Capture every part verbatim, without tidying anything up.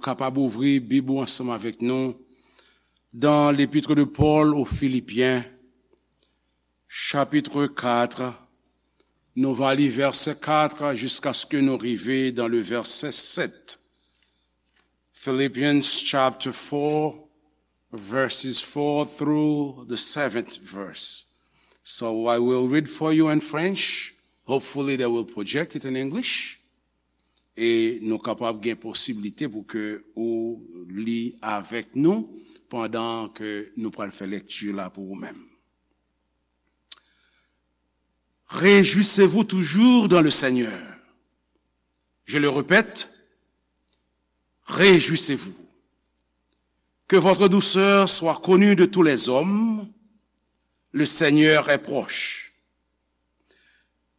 Kapab ouvri Bib ou ansanm avèk nou dans l'épître de Paul aux Philippiens, chapitre quatre. Nou va li vèsè kat jiskaske nou rive dans le verset sept. Philippians chapter four, verses four through the seventh verse. So I will read for you in French. Hopefully they will project it in English. E nou kapab gen posiblite pou ke ou li avèk nou pandan ke nou pral fè lekti la pou ou menm. Réjouissez-vous toujours dans le Seigneur. Je le répète, réjouissez-vous. Que votre douceur soit connue de tous les hommes. Le Seigneur est proche.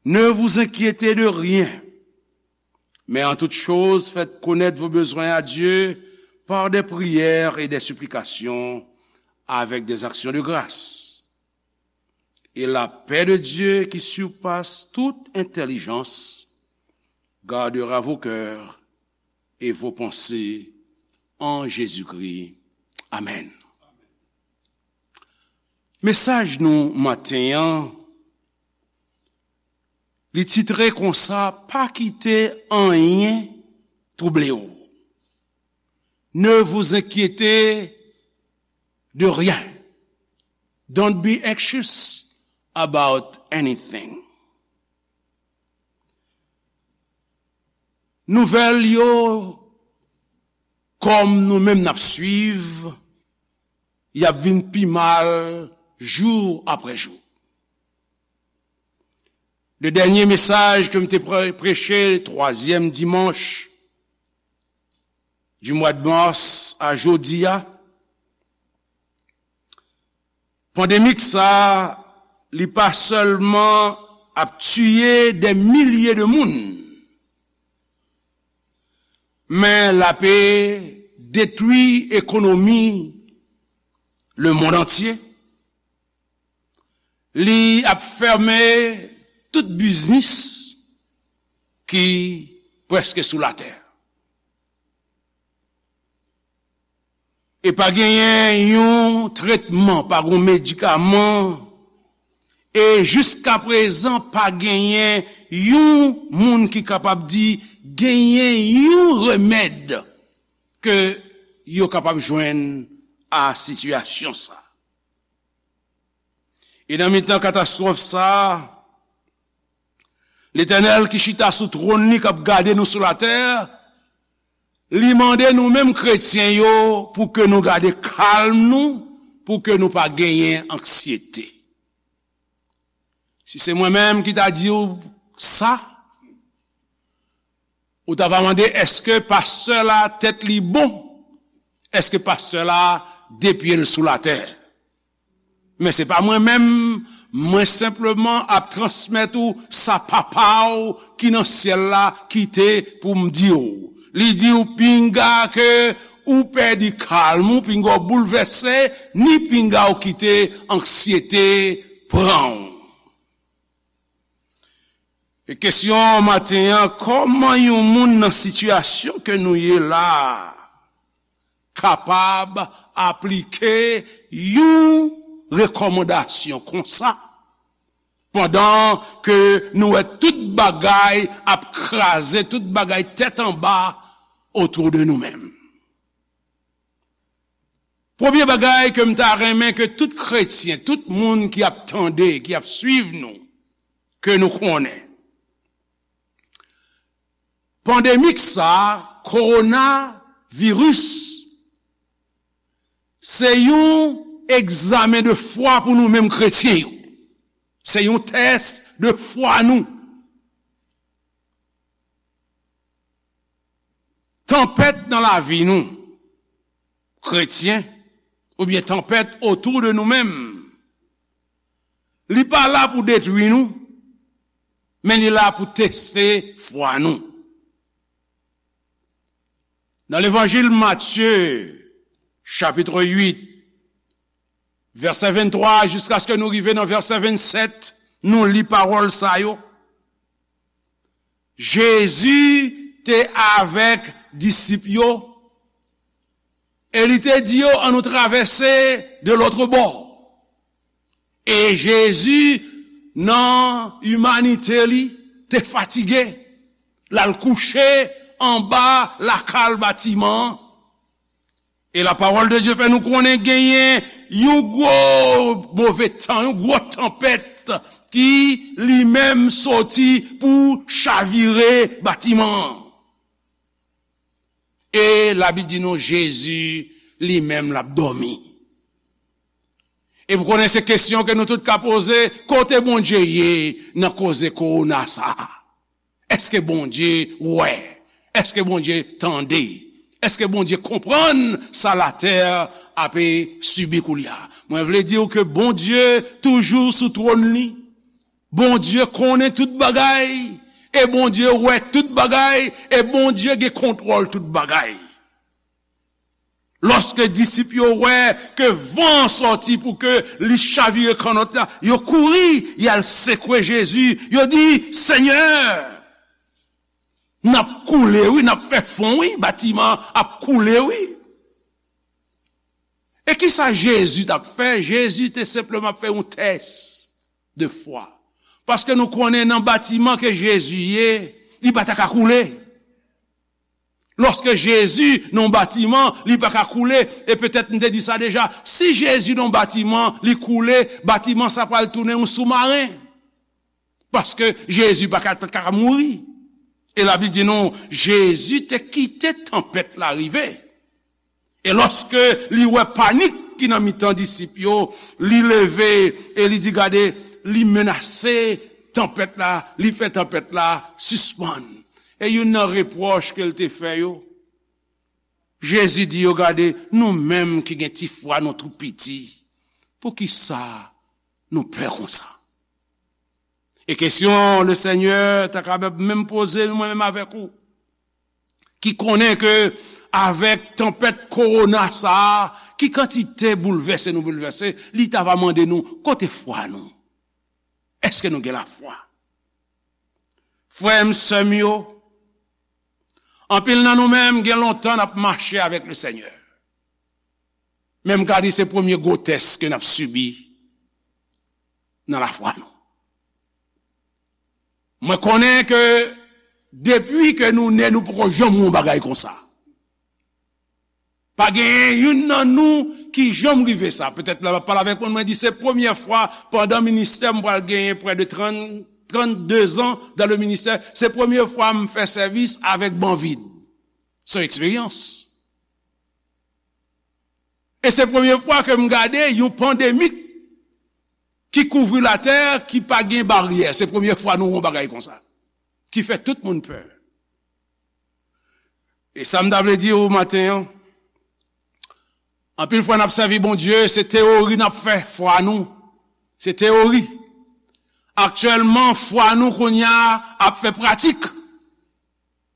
Ne vous inquiétez de rien, mais en toute chose, faites connaître vos besoins à Dieu par des prières et des supplications avec des actions de grâce. Et la paix de Dieu qui surpasse toute intelligence gardera vos cœurs et vos pensées en Jésus-Christ. Amen. Mesaj nou maten an, li titre konsa, pa kite anyen twouble w. Ne vous inquiétez de rien. Don't be anxious about anything. Nouvèl yo, kòm nou menm n ap swiv, y ap vin pi mal jou apre jou. Le dènye mesaj ke m te pre-, preche, twazyèm dimanch du mois de mars a jodi a, pandemik sa, li pa sèlman ap tiye dè milye de moun, men l ape detwi ekonomi lemonn antye. Li ap fèmen tout biznis ki prèske sou latè. E pa genyen yon tretman, pa gen medikaman, e jiskaprezan pa genyen yon moun ki kapab di genyen yon remèd ke yo kapab jwenn a sitiyasyon sa. E nan mitan katastwòf sa, Letènèl ki chita sou twòn li k ap gade nou sou latè, li mande nou menm kretyen yo pou ke nou gade kalm nou, pou ke nou pa genyen anksyete. Si se mwen menm ki ta di w sa, ou ta va mande, èske pastè la tèt li bon? Èske pastè la de pye l sou latè? Men se pa mwen menm, mwen senpleman ap transmèt ou sa Papa w ki nan syèl la kite pou m di w. Li di w pinga ke ou pèdi kalm ou, pinga w boulvèse, ni pinga w kite anksyete pran w. E kesyon maten an, kòman yon moun nan sitiyasyon ke nou ye la a kapab aplike yon rekòmandasyon konsa, pandan ke nou wè tout bagay ap kraze, tout bagay tèt anba otou de nou menm? Premye bagay ke m ta renmen ke tout kretyen, tout moun ki ap tande, ki ap swiv nou, ke nou konnen. Pandemik sa, kowonaviris, se yon egzamen de fwa pou nou menm kretyen yo. Se yon tès de fwa nou. Tanpèt nan lavi nou, kretyen, oubyen tanpèt otou de nou menm, li pa la pou detwi nou, men li la pou teste fwa nou. Nan levanjil Matye, chapit uit, vèsè venntwa jiskaske nou rive nan vèsè vennsèt, nou li pawòl sa yo. Jezi te avèk disip yo E li te di yo, ann nou travèse de lòt bò. E Jezi, nan imanite li, te fatige. L al kouche anba lakal batiman an. E la pawòl de Dye fè nou konnen genyen yon gwo move tan, yon gwo tanpèt ki li menm soti pou chavire batiman an. E Labib di nou Jezi li menm l ap dòmi. E pou konnen se kesyon ke nou tout ka poze, kote Bondye ye nan koze kowona sa a? Èske Bondye wè? Èske Bondye tande? Èske Bondye konprann sa latè ape sibi koulye a? Mwen vle di w ke Bondye toujou sou twòn li. Bondye konnen tout bagay, e Bondye wè tout bagay, e Bondye gen kontwòl tout bagay. Lòske disip yo wè ke van an sòti pou ke li chavire kannòt la, yo kouri, y al sekwe Jezi, yo di, Senyè, n ap koule wi, n ap fè fon wi, batiman an ap koule wi. E kisa Jezi t ap fè? Jezi te senpleman ap fè yon tès de fwa. Paske nou konnen nan batiman ke Jezi ye, li pa ta ka koule. Lòske Jezi nan yon batiman, li pa ka koule, e petèt m te di sa deja, si Jezi nan yon batiman, li koule, batiman sa pral tounen yon soumaren. Paske Jezi pa ka, pa ka mouri. E Labib di nou, Jezi te kite tanpèt la rive. E lòske li wè panik ki nan mitan disip yo, li leve e li di, gade, li menase tanpèt la, li fè tanpèt la sispann. E youn nan repwòch ke l te fè yo, Jezi di yo, gade, nou menm ki gen ti fwa, nou tou piti, poukisa nou pè konsa? E kesyon Lesenyè ta kapab menm poze mwen menm avèk ou, ki konnen ke avèk tanpèt kowona sa a, ki kantite boulvèse nou boulvèse, li ta va mande nou, kote fwa nou? Èske nou gen lafwa? Frè m, sè m yo, anpil nan nou menm gen lontan n ap mache avèk Lesenyè. Men m ka di se premye gwo tès ke n ap sibi nan lafwa nou. Mwen konnen ke depi ke nou ne, nou poko janm wè yon bagay konsa. Pa genyen youn nan nou ki janm rive sa. Petèt lè w ap pale avèk mwen, mwen di se premye fwa pandan ministè m pral genyen prè de trant, trannde zan dan le ministè. Se premye fwa m fè sèvis avèk ban vid. Se yon eksperyans. E se premye fwa ke m gade yon pandemi ki kouvri latè, ki pa gen baryè. Se premye fwa nou wè yon bagay konsa, ki fè tout moun pè. E sa m ta vle di w maten an, anpil fwa n ap sèvi Bondye, se teyori n ap fè fwa nou. Se teyori. Aktyèlman, fwa nou kounye a ap fè pratik.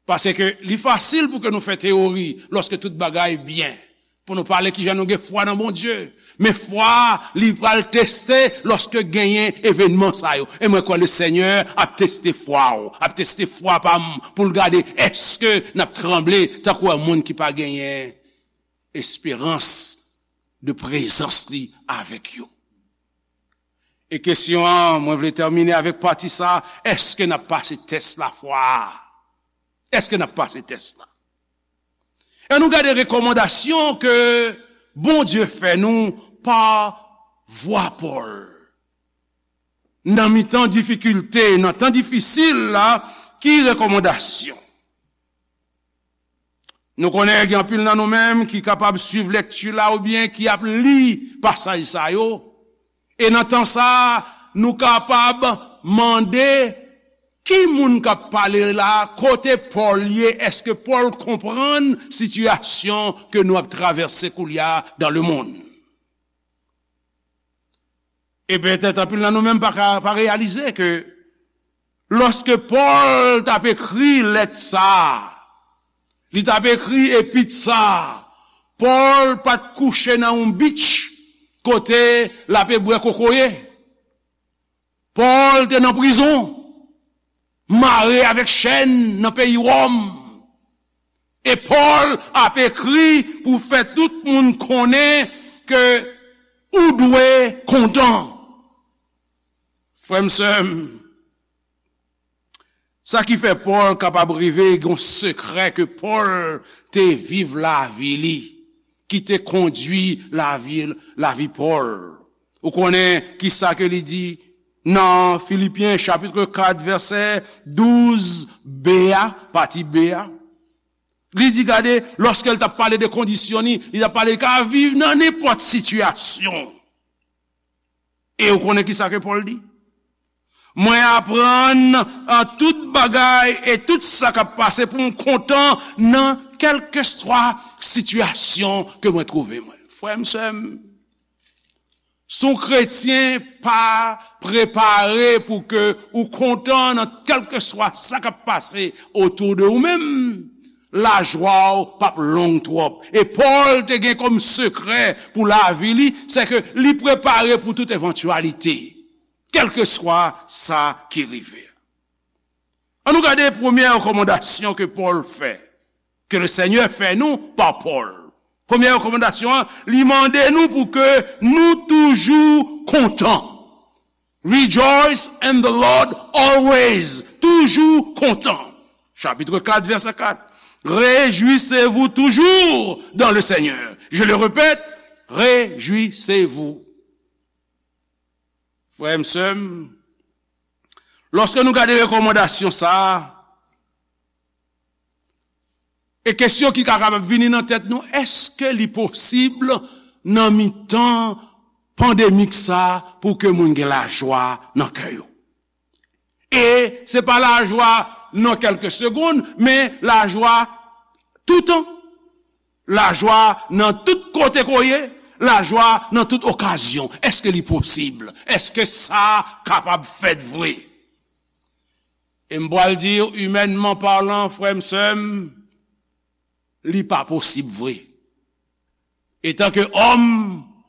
Paske li fasil pou ke nou fè teyori lòske tout bagay byen. Pou nou pale kijan nou gen fwa nan Bondye. Men fwa, li pral teste lòske genyen evènman sa yo. E mwen kwè Lesenyè ap teste fwa w, ap teste fwa pa m, pou l gade èske n ap tranble tankou yon moun ki pa genyen esperans de prezans li avèk yo. E kesyon an, mwen vle tèmine avèk pati sa a, èske n ap pase tès lafwa a? Èske n ap pase tès la? E nou gade rekòmandasyon ke Bondye fè nou pa vwa Pòl. Nan mitan difikilte, nan tan difisil la, ki rekòmandasyon? Nou konnen gen anpil nan nou menm ki kapab swiv lekti la oubyen ki ap li pasaj sa yo. E nan tan sa a, nou kapab mande ki moun k ap pale la, kote Pòl ye, èske Pòl konprann sitiyasyon ke nou ap travèse koulye a dans le monde? E petèt anpil nan nou menm pa ka, pa reyalize ke lòske Pòl t ap ekri lèt sa a, li t ap ekri epit sa a, Pòl pa t kouche nan yon beach kote l ape bwè kokoye. Pòl te nan prizon, mare avèk chèn nan peyi Wòm. E Pòl ap ekri pou fè tout moun konnen ke ou dwe kontan. Frè m, sè m, sa ki fè Pòl kapab rive gen yon sekrè ke Pòl te viv lavi li, ki te kondui lavi, lavi Pòl. Ou konnen ki sa ke li di nan Filipyen chapit kat vèsè douz b a, pati b a? Li di, gade, lòske l t ap pale de kondisyon li, li t ap pale li ka viv nan nenpòt sitiyasyon. E ou konnen ki sa ke Pòl di? Mwen aprann an tout bagay e tout sa k ap pase pou m kontan nan kèlkeswa sitiyasyon ke mwen twouve mwen. Frè m, sè m, si w kretyen pa prepare pou ke ou kontan nan kèlkeswa sa k ap pase otou de ou menm, lajwa w p ap long twòp. E Pòl te gen kòm sekrè pou lavi li, se ke li prepare pou tout evantyalite, kèlkeswa sa ki rive. Ann nou gade premyè rekòmandasyon ke Pòl fè, ke le Senyè fè nou pa Pòl. Premyè rekòmandasyon an, li mande nou pou ke nou toujou kontan. Rejoice in the Lord always. Toujou kontan. Chapit kat, vèsè kat. Réjouissez-vous toujours dans le Seigneur. Je le répète, réjouissez-vous. Frè m, sè m, lòske nou gade rekòmandasyon sa a, e kesyon ki ka kapab vini nan tèt nou, èske li posib nan mitan pandemik sa a pou ke moun gen lajwa nan kè yo? E se pa lajwa nan kèlke segonn, men lajwa toutan. Lajwa nan tout kote ke w ye, lajwa nan tout okazyon. Èske li posib? Èske sa kapab fèt vre? E m pral di w, imènman palan, frè m, sè m, li pa posib vre. Etanke òm,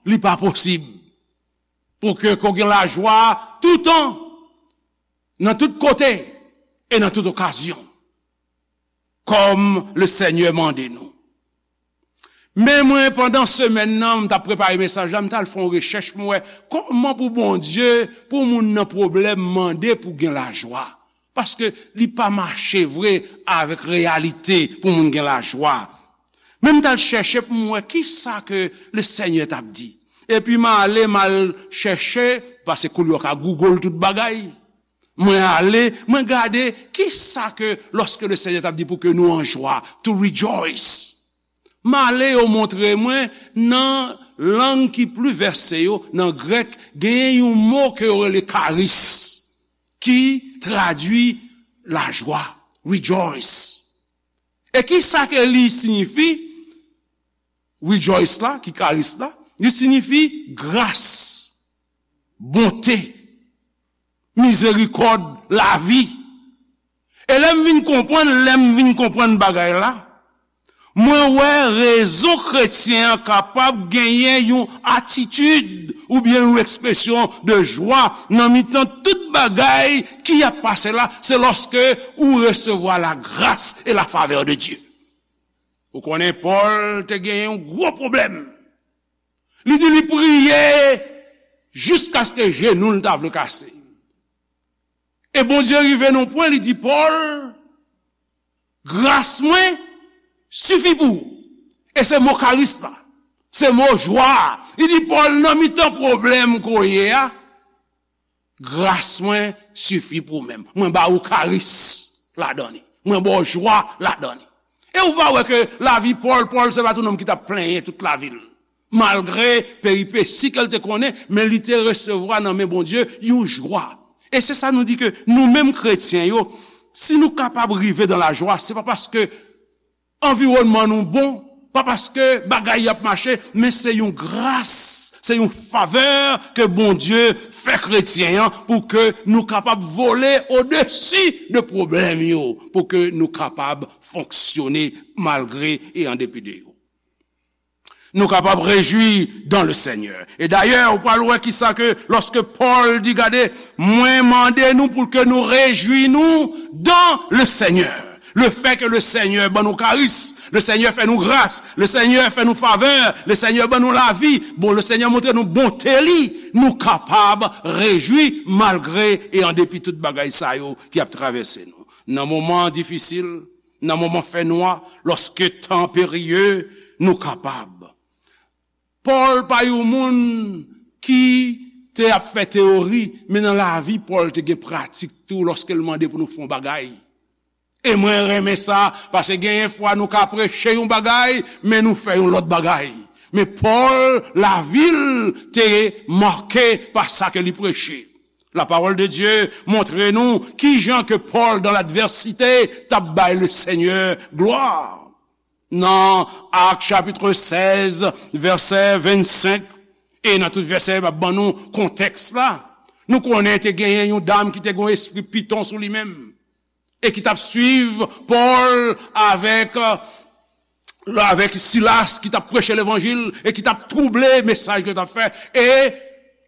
li pa posib pou ke, ke w gen lajwa toutan, nan tout kote e nan tout okazyon, kòm le Senyè mande nou. Men mwen, pandan semèn nan, m t ap prepare mesaj la, m t al fè yon rechèch pou m wè kòman pou Bondye, pou moun nan pwoblèm, mande pou gen lajwa. Paske li pa mache vre avèk reyalite pou moun gen lajwa. Men m t al chèche pou m wè ki sa ke le Senyè t ap di. Epi m ale, m al chèche, paske koulye a w ka Google tout bagay. Mwen ale, mwen gade ki sa ke, lòske le Senyè t ap di pou ke nou an jwa, to rejoice. M ale, yo montre mwen, nan lang ki pli vèse yo, nan grèk, genyen yon mo ke yo rele karis, ki tradui lajwa, rejoice. E ki sa ke li siyifi? Rejoice la, ki karis la, li siyifi gras, bonte, mizerikòd, lavi. E lè m vin konprann, lè m vin konprann bagay la, mwen wè rezon kretyen an kapab genyen yon atitid oubyen yon ekspresyon de jwa nan mitan tout bagay ki ap pase la, se lòske ou resevwa la gras e la favè de Dye. Ou konnen Pòl te genyen yon gwo pwoblèm. Li di li priye jiskaske jenou l ta vle kase. E Bondye rive nan pwen, li di, Pòl, gras mwen sifi pou ou. E se mo karis la. Se mo jwa a. Li di, Pòl, nan mitan pwoblèm ke w ye a, gras mwen sifi pou ou menm. Mwen ba ou karis ladan li. Mwen ba w jwa ladan li. E ou va wè ke lavi Pòl, Pòl se pa t yon nonm ki t ap plenyen tout lavi l. Malgre peripesi ke l te konnen, men li te resevwa nan men Bondye yon jwa. E se sa nou di ke nou menm kretyen yo, si nou kapab rive dan lajwa, se pa paske anviwònman nou bon, pa paske bagay y ap mache, men se yon gras, se yon favè ke Bondye fè kretyen an pou ke nou kapab vole odesi de pwoblèm yo, pou ke nou kapab fonksyone malgre e an depi de yo. Nou kapab rejwi dans le Seigneur. E dayè, ou pral wè kisa ke lòske Pòl di, gade, mwen mande nou pou ke nou rejwi nou dans le Seigneur. Le fè ke le Senyè ban nou karis, le Senyè fè nou gras, le Senyè fè nou favè, le Senyè ban nou lavi, bon, le Senyè montre nou bonte li, nou kapab rejwi malgre e an depi tout bagay sa yo ki ap travèse nou. Nan moman difisil, nan moman fènwa, lòske tan perye, nou kapab. Pòl pa yon moun ki te ap fè teyori, men nan lavi Pòl te gen pratik tou lòske l mande pou nou fè yon bagay. E mwen renmen sa, paske genyen fwa nou ka preche yon bagay, men nou fè yon lòt bagay. Men Pòl, lavi l te make pa sa ke li preche. La parole de Dieu montre nou kijan ke Pòl, dans l'adversité, t ap bay le Senyè glwa. Nan Ak chapit sèz, vèsè vennsenk, e nan tout vèsè, m ap ban nou kontèks la. Nou konnen te genyen yon dam ki te gen yon espri piton sou li menm, e ki t ap swiv Pòl avèk, avèk Silas, ki t ap preche levanjil, e ki t ap twouble mesaj ke yo t ap fè. E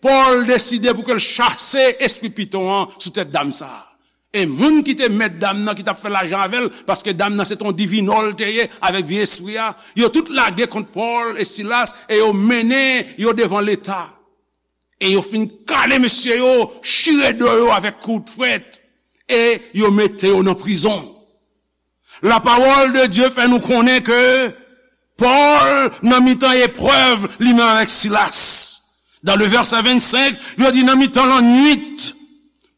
Pòl deside pou ke l chase espri piton an sou tèt dam sa a. E moun ki te mèt dam nan, ki t ap fè lajan avè l, paske dam nan se t on divinò l te ye, avèk vye espri a, yo tout lage kont Pòl e Silas, e yo mennen yo devan Leta. E yo fin kale mesye yo, chire do yo avèk kout frèt, e yo mete yo nan prizon. La parole de Dieu fè nou konnen ke Pòl, nan mitan eprèv, li menm avèk Silas. Dans le verset vennsenk, yo di nan mitan lannwit,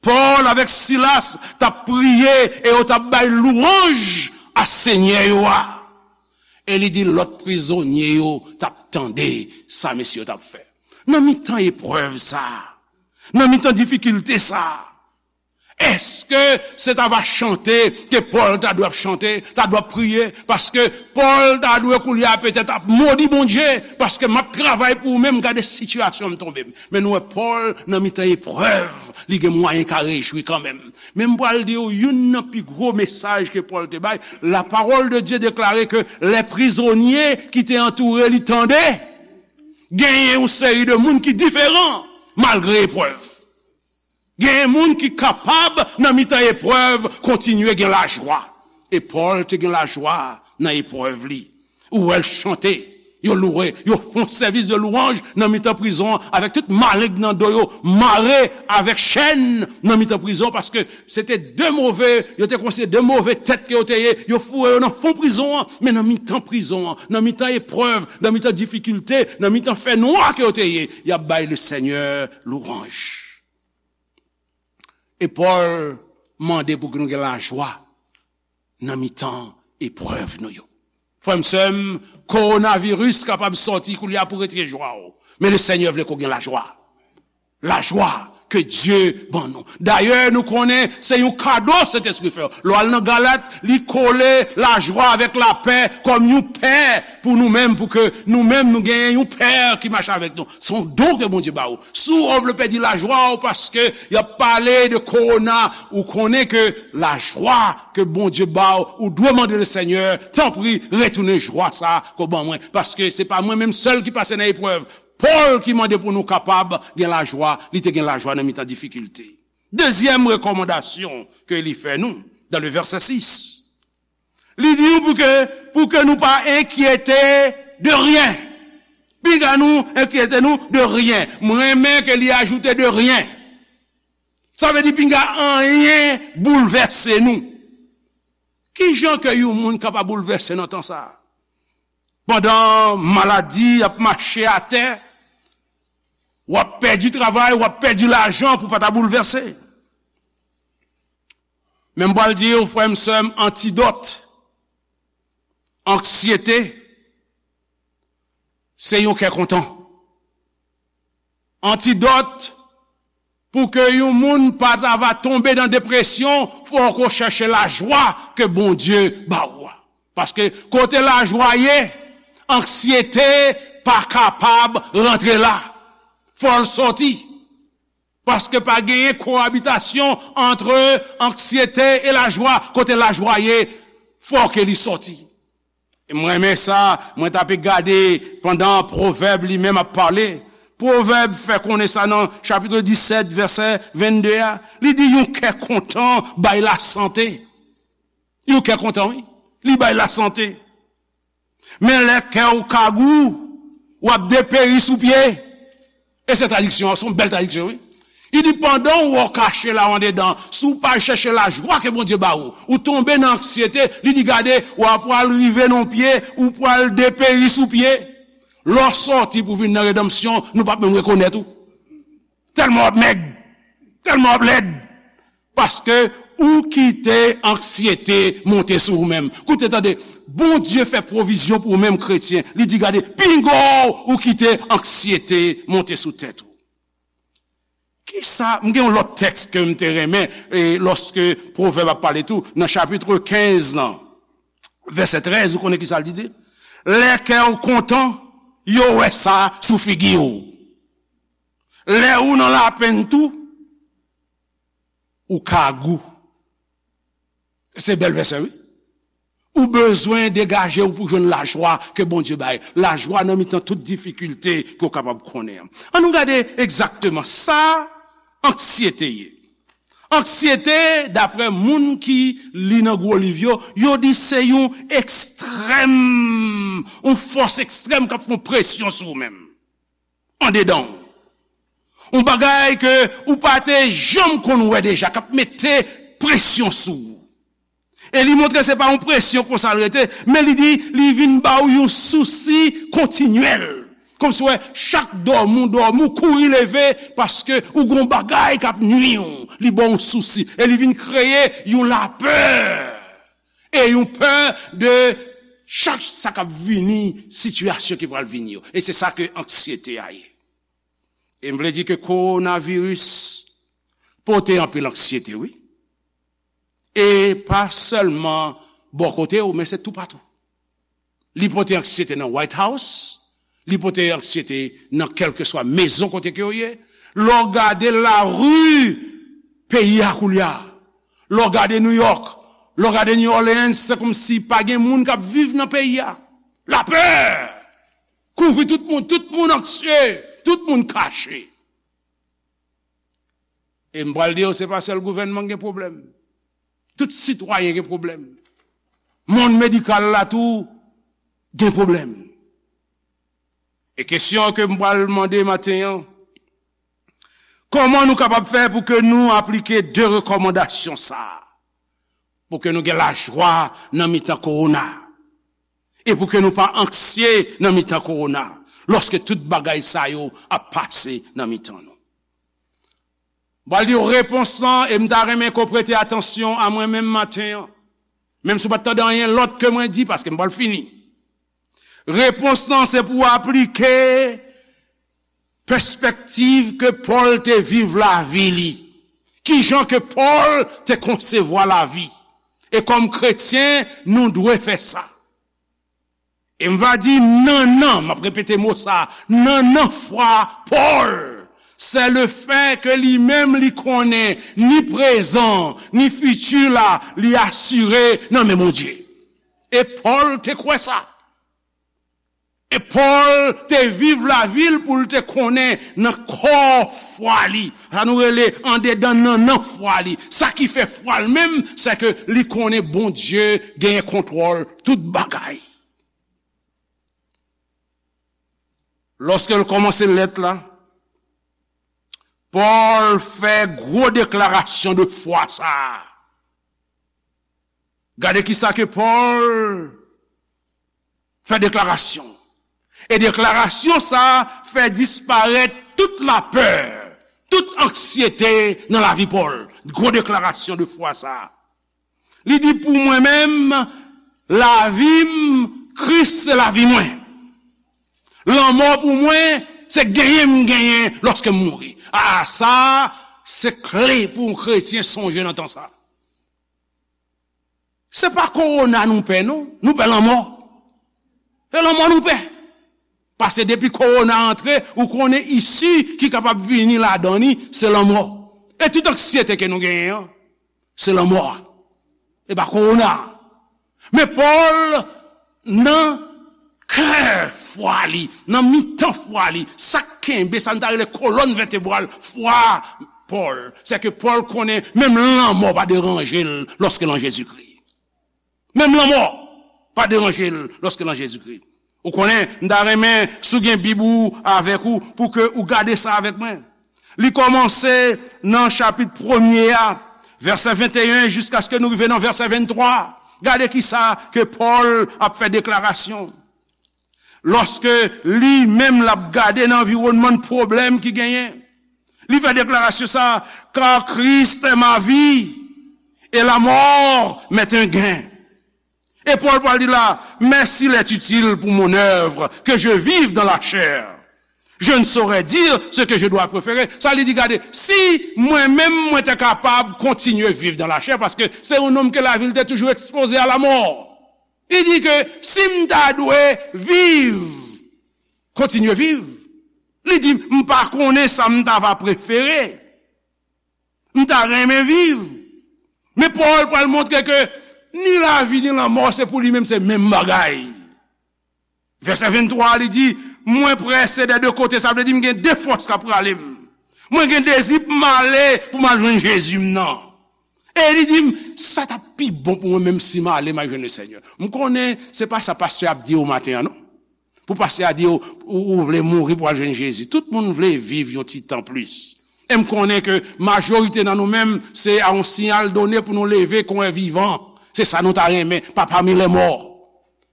Pòl avèk Silas t ap priye e yo t ap bay lwanj a Senyè yo a. E li di lòt prizonye yo t ap tande sa mesye yo t ap fè. Nan mitan eprèv sa a, nan mitan difikilte sa a, èske se ta va chante ke Pòl ta dwe ap chante, ta dwe ap priye? Paske Pòl ta dwe koulye a petèt ap modi Bondye, paske m ap travay pou ou menm, gade sitiyasyon m tonbe m. Men nou wè Pòl nan mitan eprèv, li gen mwayen ka rejwi kanmenm. Men m pral di w youn nan pi gwo mesaj ke Pòl te bay. La parole de Dieu deklare ke lè prizonye ki te antoure li tande, genyen yon seri de moun ki diferan malgre eprèv. Genyen moun ki kapab, nan mitan eprèv, kontinye gen lajwa. E Pòl te gen lajwa nan eprèv li. Ou wè l chante, yo louwe, yo fè yon sèvis de lwanj nan mitan prizon an, avèk tout maleng nan do yo, mare avèk chèn nan mitan prizon, paske se te de move, yo te konsidere de move tèt ke yo te ye, yo foure yo nan fon prizon an, men nan mitan prizon an, nan mitan eprèv, nan mitan difikilte, nan mitan fènwa ke yo te ye, y ap bay le Senyè lwanj. E Pòl mande pou ke nou gen lajwa nan mitan eprèv nou yo. Frè m, sè m, kowonaviris kapab sòti koulye a pou retire jwa w. Men le Senyè vle ke w gen lajwa. Lajwa ke Dye ban nou. Dayè, nou konnen se yon kado Sentespri fè. Lè w al nan Galat, li kole lajwa avèk lapè kòm yon pè pou nou menm, pou ke nou menm nou genyen yon pè ki mache avèk nou. Se yon don ke Bondye ba ou. Si w vle pèdi lajwa w paske y ap pale de kowona, ou konnen ke lajwa ke Bondye ba w, ou dwe mande le Senyè, tanpri, retounen jwa sa a ke w ban mwen. Paske se pa mwen menm sèl ki pase nan eprèv. Pòl ki mande pou nou kapab gen lajwa, li te gen lajwa nan mitan difikilte. Dezyèm rekòmandasyon ke li fè nou, dans le verset six, li di nou pou ke, pou ke nou pa enkyete de ryen. Pinga nou enkyete nou de ryen. Mwen renmen ke li ajoute de ryen. Sa vle di pinga anyen boulvèse nou. Ki jan ke yon moun kapab boulvèse nan tan sa a? Pandan maladi ap mache atè, w ap pèdi travay, w ap pèdi lajan pou w pa ta boulvèse. Men m pral di w, frè m, sè m, antidòt anksyete, se yon kè kontan. Antidòt pou ke yon moun pa ta va tonbe nan depresyon, fòk ou chèche lajwa ke Bondye ba ou a. Paske kote lajwa ye, anksyete pa kapab rantre la. Fò l sòti. Paske pa genyen koabitasyon ant anksyete e lajwa. Kote lajwa ye, fò ke li sòti. E mwen renmen sa, mwen t ape gade pandan Pwovèb li menm ap pale. Pwovèb fè konnen sa nan chapit disèt, vèsè vennde a. Li di, yon kè kontan bay lasante. Yon kè kontan, wi. Li bay lasante. Men lè kè w kagou, w ap deperi sou pye. E se tradiksyon an, se yon bèl tradiksyon, wi. Li di, pandan w wè w kache la w andedan, si w pa chèche lajwa ke Bondye ba ou, ou tonbe nan anksyete, li di, gade, w ap pral rive nan pye, ou pral deperi sou pye. Lè w sòti pou vin nan redanmsyon, nou p ap menm rekonèt ou. Tèlman w ap mèg, tèlman w ap lèd. Paske ou kite anksyete monte sou ou menm. Koute, tande, Bondye fè pwovizyon pou ou menm kretyen. Li di, gade, pinga w, ou kite anksyete monte sou tèt ou. Kisa, m gen yon lòt tèks ke m te renmen, e, lòske Pwovèb ap pale tou, nan chapit kenz lan, vèsè trèz, ou konnen kisa l di? Lè kè w kontan, yo wè sa sou figi w. Lè ou nan lapenn tou, ou kagou. Se bèl vèsè, wi. Ou bezwen degaje w pou jwenn lajwa ke Bondye bay. Lajwa nan mitan tout difikilte ke w kapab konnen an. An nou gade egzakteman sa anksyete ye. Anksyete, daprè moun ki li nan gwo liv yo, yo di se yon ekstrèm, yon fòs ekstrèm k ap fè yon presyon sou ou menm. Andedan w. Yon bagay ke ou pa te janm konn wè deja, k ap mete presyon sou ou. E li montre se pa yon presyon konsa l rete, men li di li vin ba w yon sousi kontinyèl. Kòmsi w wè chak dòmi w dòmi, w kouri leve, paske ou gen yon bagay k ap nwi w. Li ba w yon sousi. E li vin kreye yon lapè. E yon pè de chak sa k ap vini, sitiyasyon ki pral vini yo. E se sa ke anksyete a ye. E m vle di ke kowonaviris pote anpil anksyete, wi. E pa sèlman bò kote w, men se toupatou. Li pote anksyete nan White House, li pote anksyete nan kèlkeswa mezon kote ke w ye. Lè w gade lari peyi a koulye a, lè w gade New York, lè w gade New Orleans, se kòmsi pa gen moun k ap viv nan peyi a. Lapè kouvri tout moun, tout moun anksye, tout moun kache. E m pral di w, se pa sèl gouvènman k gen pwoblèm. Tout sitwayen gen pwoblèm. Mond medikal la tou gen pwoblèm. E kesyon ke m pral mande maten an, kòman nou kapab fè pou ke nou aplike de rekòmandasyon sa a? Pou ke nou gen lajwa nan mitan kowona. E pou ke nou pa anksye nan mitan kowona, lòske tout bagay sa yo ap pase nan mitan nou. M pral di w repons lan, e m ta renmen ke w prete atansyon a mwen menm maten an. Menm si w pa t tande anyen lòt ke mwen di, paske m pral fini. Repons lan, se pou w aplike pèspèktiv ke Pòl te viv lavi li. Kijan ke Pòl te konsevwa lavi. E kòm kretyen, nou dwe fè sa. E m va di nannan, m ap repete mo sa, nannan fwa Pòl, se le fè ke li menm li konnen ni prezan, ni fiti la, li asire nan men Bondye. E Pòl te kwè sa. E Pòl te viv lavi l pou l te konnen nan kò fwa li. Sa nou rele andedan nannan fwa li. Sa ki fè fwa l menm, se ke li konnen Bondye genyen kontwòl tout bagay. Lòske l kòmanse lèt la, Pòl fè gwo deklarasyon de fwa sa a. Gade kisa ke Pòl fè deklarasyon. E deklarasyon sa a fè disparèt tout lapè, tout anksyete nan lavi Pòl. Gwo deklarasyon de fwa sa a. Li di, pou mwen menm, lavi m, Kris se lavi mwen. Lanmò pou mwen, se genyen m genyen lòske m mouri. A, sa, se kle pou yon kretyen sonje nan tan sa. Se pa kowona nou pè, non. Nou pè lanmò. Se lanmò nou pè. Paske depi kowona antre, ou konnen isi ki kapab vini ladan li, se lanmò. E tout anksyete ke nou genyen an, se lanmò a. E pa kowona a. Men Pòl, nan kè fwa li, nan mitan fwa li, sa k kenbe, sa n ta rele kolòn vètebral fwa Pòl, se ke Pòl konnen menm lanmò pa deranje l lòske l an Jezikri. Menm lanmò pa deranje l lòske nan Jezikri. Ou konnen, m ta renmen, si w gen Bib ou avèk ou, pou ke ou gade sa avèk mwen. Li kòmanse nan chapit premye a, vèsè venteyen, jiskaske nou rive nan vèsè venntwa. Gade kisa ke Pòl ap fè deklarasyon. Lòske li menm l ap gade nan anviwònman pwoblèm ki genyen, li fè deklarasyon sa, car Christ est ma vie et la mort m'est un gain. E Pòl pral di la, mais s'il est utile pour mon œuvre que je vive dans la chair, je ne saurais dire ce que je dois préférer. Sa li di, gade, si mwen menm mwen te kapab kontinye viv dan lachè, paske se yon nonm ke lavi l te toujou ekspoze a lamò. Li di ke si m ta dwe viv, kontinye viv, li di, m pa konnen sa m ta va prefere. M ta renmen viv. Men Pòl pral montre ke ni lavi ni lanmò, se pou li menm, se menm bagay. Vèsè venntwa, li di, mwen prese dè de kote, sa vle di m gen de fòs k ap rale m. Mwen gen dezi pou m ale, pou m al jwenn Jezi m nan. E li di m, sa t ap pi bon pou mwen menm si m ale, m al jwenn Lesenyè. M konnen se pa sa pastè ap di w maten an, non. Pou pastè a di w, ou, ou vle mouri pou al jwenn Jezi. Tout moun vle viv yon ti tan plis. E m konnen ke majorite nan nou menm, se a yon siyal done pou nou leve kon en vivan. Se sa nou ta renmen, pa pami lè mò.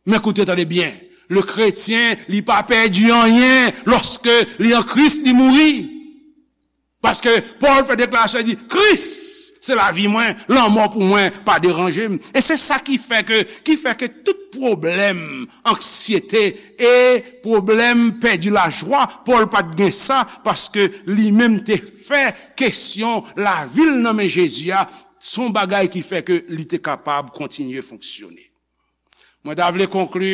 Men koute, tande byen. Le kretyen, li pa pèdi anyen lòske li an Kris, li mouri. Paske Pòl fè deklarasyon, li di, Kris se lavi mwen, lanmò pou mwen pa deranje m. E se sa ki fè ke, ki fè ke tout pwoblèm, anksyete e pwoblèm pèdi lajwa, Pòl pa t gen sa, paske li menm te fè kesyon lavi l nan men Jezi a, se yon bagay ki fè ke li te kapab kontinye fonksyone. Mwen ta vle konkli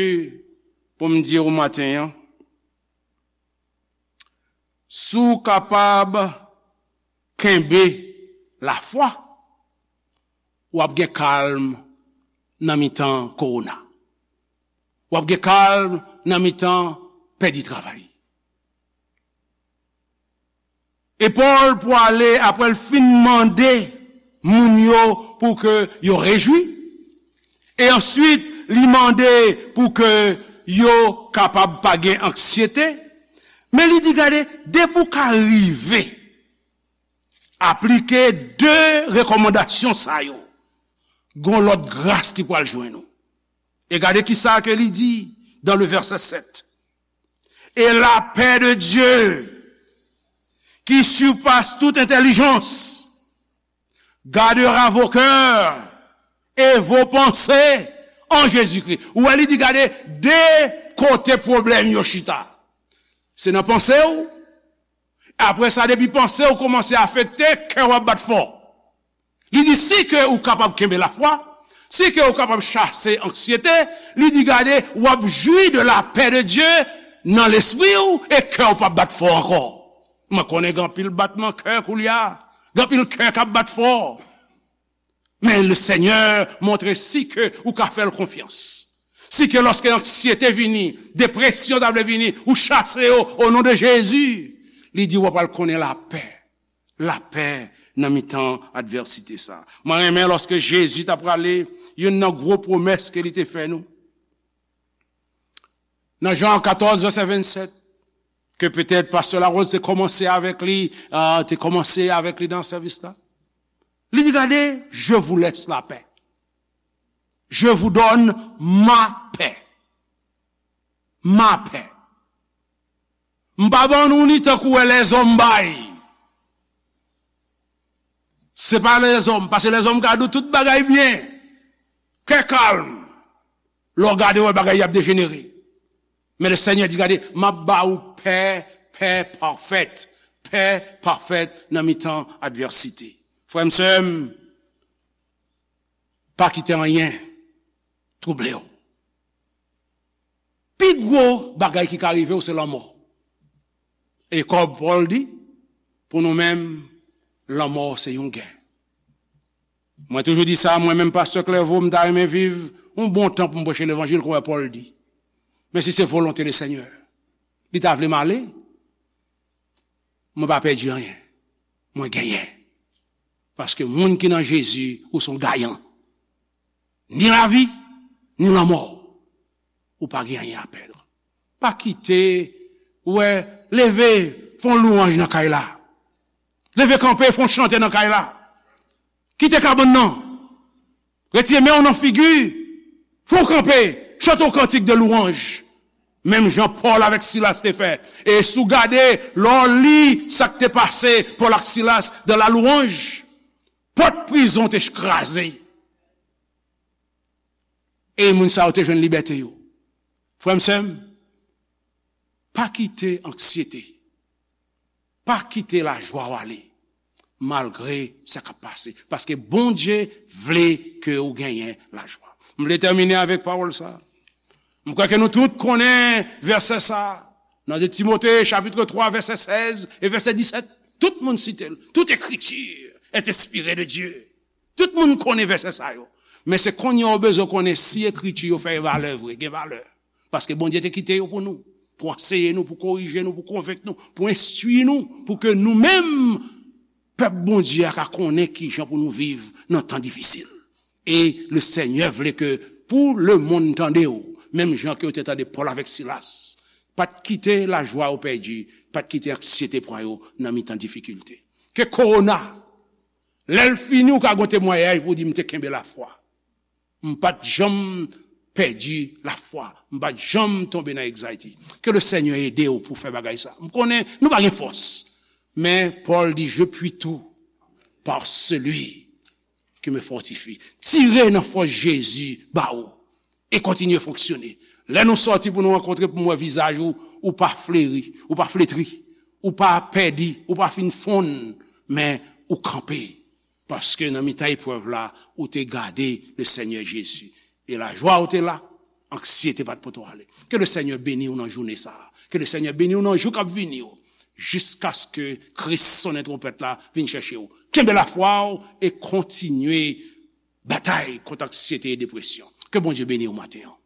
pou m di w maten an, si w kapab kenbe lafwa, w ap gen kalm nan mitan kowona. W ap gen kalm nan mitan pèdi travay. E Pòl pwale, apre l fin mande moun yo pou ke yo rejwi, e answit li mande pou ke yo kapab pa gen anksyete, men li di, gade, depi w ka rive aplike de rekòmandasyon sa yo, gon lòt gras ki pral jwenn ou. E gade kisa ke li di dans le verset sept. Et la paix de Dieu, qui surpasse toute intelligence, gardera vos cœurs et vos pensées en Jésus-Christ. Ou wè, li di, gade, de kote pwoblèm yo chita. Se nan panse w. Apre sa, depi panse w kòmanse afekte, kè w ap bat fò. Li di, si ke ou kapab kenbe lafwa, si ke ou kapab chase anksyete, li di, gade, w ap jwi de la paix de Dieu nan lespri w e kè w p ap bat fò ankò. Mwen konnen gen anpil batman kè koulye a, gen anpil kè k ap bat fò. Men Lesenyè montre si ke ou ka fè l konfyans. Si ke lòske anksyete vini, depresyon ta vle vini, ou chase yo o non de Jezi, li di w ap al konnen lapè. Lapè nan mitan advèsite sa. Mwen renmen lòske Jezi t ap prale, youn nan gwo pwomès ke li te fè nou. Nan Jan katòz, vèsè vennsèt, ke petèt pastè Larose te kòmanse avèk li, euh, te kòmanse avèk li nan sèvis la. Li di, gade, je vous laisse la paix. Je vous donne ma paix. Ma paix. M pa ban nou ni tankou wè lèzòm bay. Se pa lèzòm, paske lèzòm ka di w tout bagay byen. Kè kalm. Lè w gade, w wè bagay y ap dejenere. Men Lesenyè di, gade, m ap ba ou pè, pè pafèt. Pè pafèt nan mitan advèsite. Frè m, sè m, pa kite anyen twouble w. Pi gwo bagay ki ka rive w se lanmò. E kòm Pòl di, pou nou menm, lanmò se yon gen. Mwen toujou di sa, mwen menm pastè Clairvaux, m ta renmen viv yon bon tan pou m preche levanjil, kòm Pòl di. Men si se volonte Lesenyè, li ta vle m ale, mwen pa pèdi anyen. Mwen genyen. Paske moun ki nan Jezi, ou se yon gayan. Ni lavi, ni lanmò. Ou pa gen anyen a pèd. Pa kite, ou wè, leve, fè yon lwanj nan kay la. Leve kanpe, fè yon chante nan kay la. Kite kabann nan. Retire men w nan figi. Fè w kanpe. Chante yon kantik de lwanj. Menm jan Pòl avèk Silas te fè. E si w gade, lè w li sa k te pase Pòl ak Silas dans la louange, pòt prizon te kraze. E moun sa yo te jwenn libète yo. Frè m, sè m, pa kite anksyete, pa kite lajwa w ale, malgre sa k ap pase. Paske Bondye vle ke w genyen lajwa. M vle tèmine avèk pawòl sa. M kwè ke nou tout konnen vèsè sa. Nan de Timote, chapitre twa, vèsè sèz e vèsè disèt. Tout moun site l. Toute écriture est inspirée de Dieu. Tout moun konnen vèsè sa yo. Men se kounye a w bezwen konnen si ekriti yo fè valè vre, gen valè. Paske Bondye te kite yo pou nou, pou anseye nou, pou korije nou, pou konvenk nou, pou enstwi nou, pou ke nou menm, pèp Bondye a, ka konnen kijan pou nou viv nan tan difisil. E le Senyè vle ke pou lemonn tande w, menm jan ke yo te tande Pòl avèk Silas. Pa t kite lajwa yo pèdi, pa t kite anksyete pran yo nan mitan difikilte. Ke kowona, lè l fini, ou ka gen temwayaj pou w di, "M te kenbe lafwa. M pa t janm pèdi lafwa. M pa t janm tonbe nan anxiety." Ke le Senyè ede w pou fè bagay sa. M konnen nou pa gen fòs. Men Pòl di, "Je puis tout par celui qui me fortifie." Tire nan fòs Jezi ba ou e kontinye fonksyone. Lè nou sòti pou nou rankontre, pou m wè vizaj ou, ou pa fleri, ou pa fletri, ou pa pèdi, ou pa fin fonn, men ou kanpe. Paske nan mitan eprèv la, ou te gade le Senyè Jezi. E lajwa ou te la, anksyete pa t pote w ale. Ke le Senyè beni w nan jounen sa a. Ke le Senyè beni w nan jou k ap vini yo. Jiskaske Kris sonnen twonpèt la vin chèche w. Kenbe lafwa w e kontinye batay kont anksyete e depresyon. Ke Bondye beni w maten an.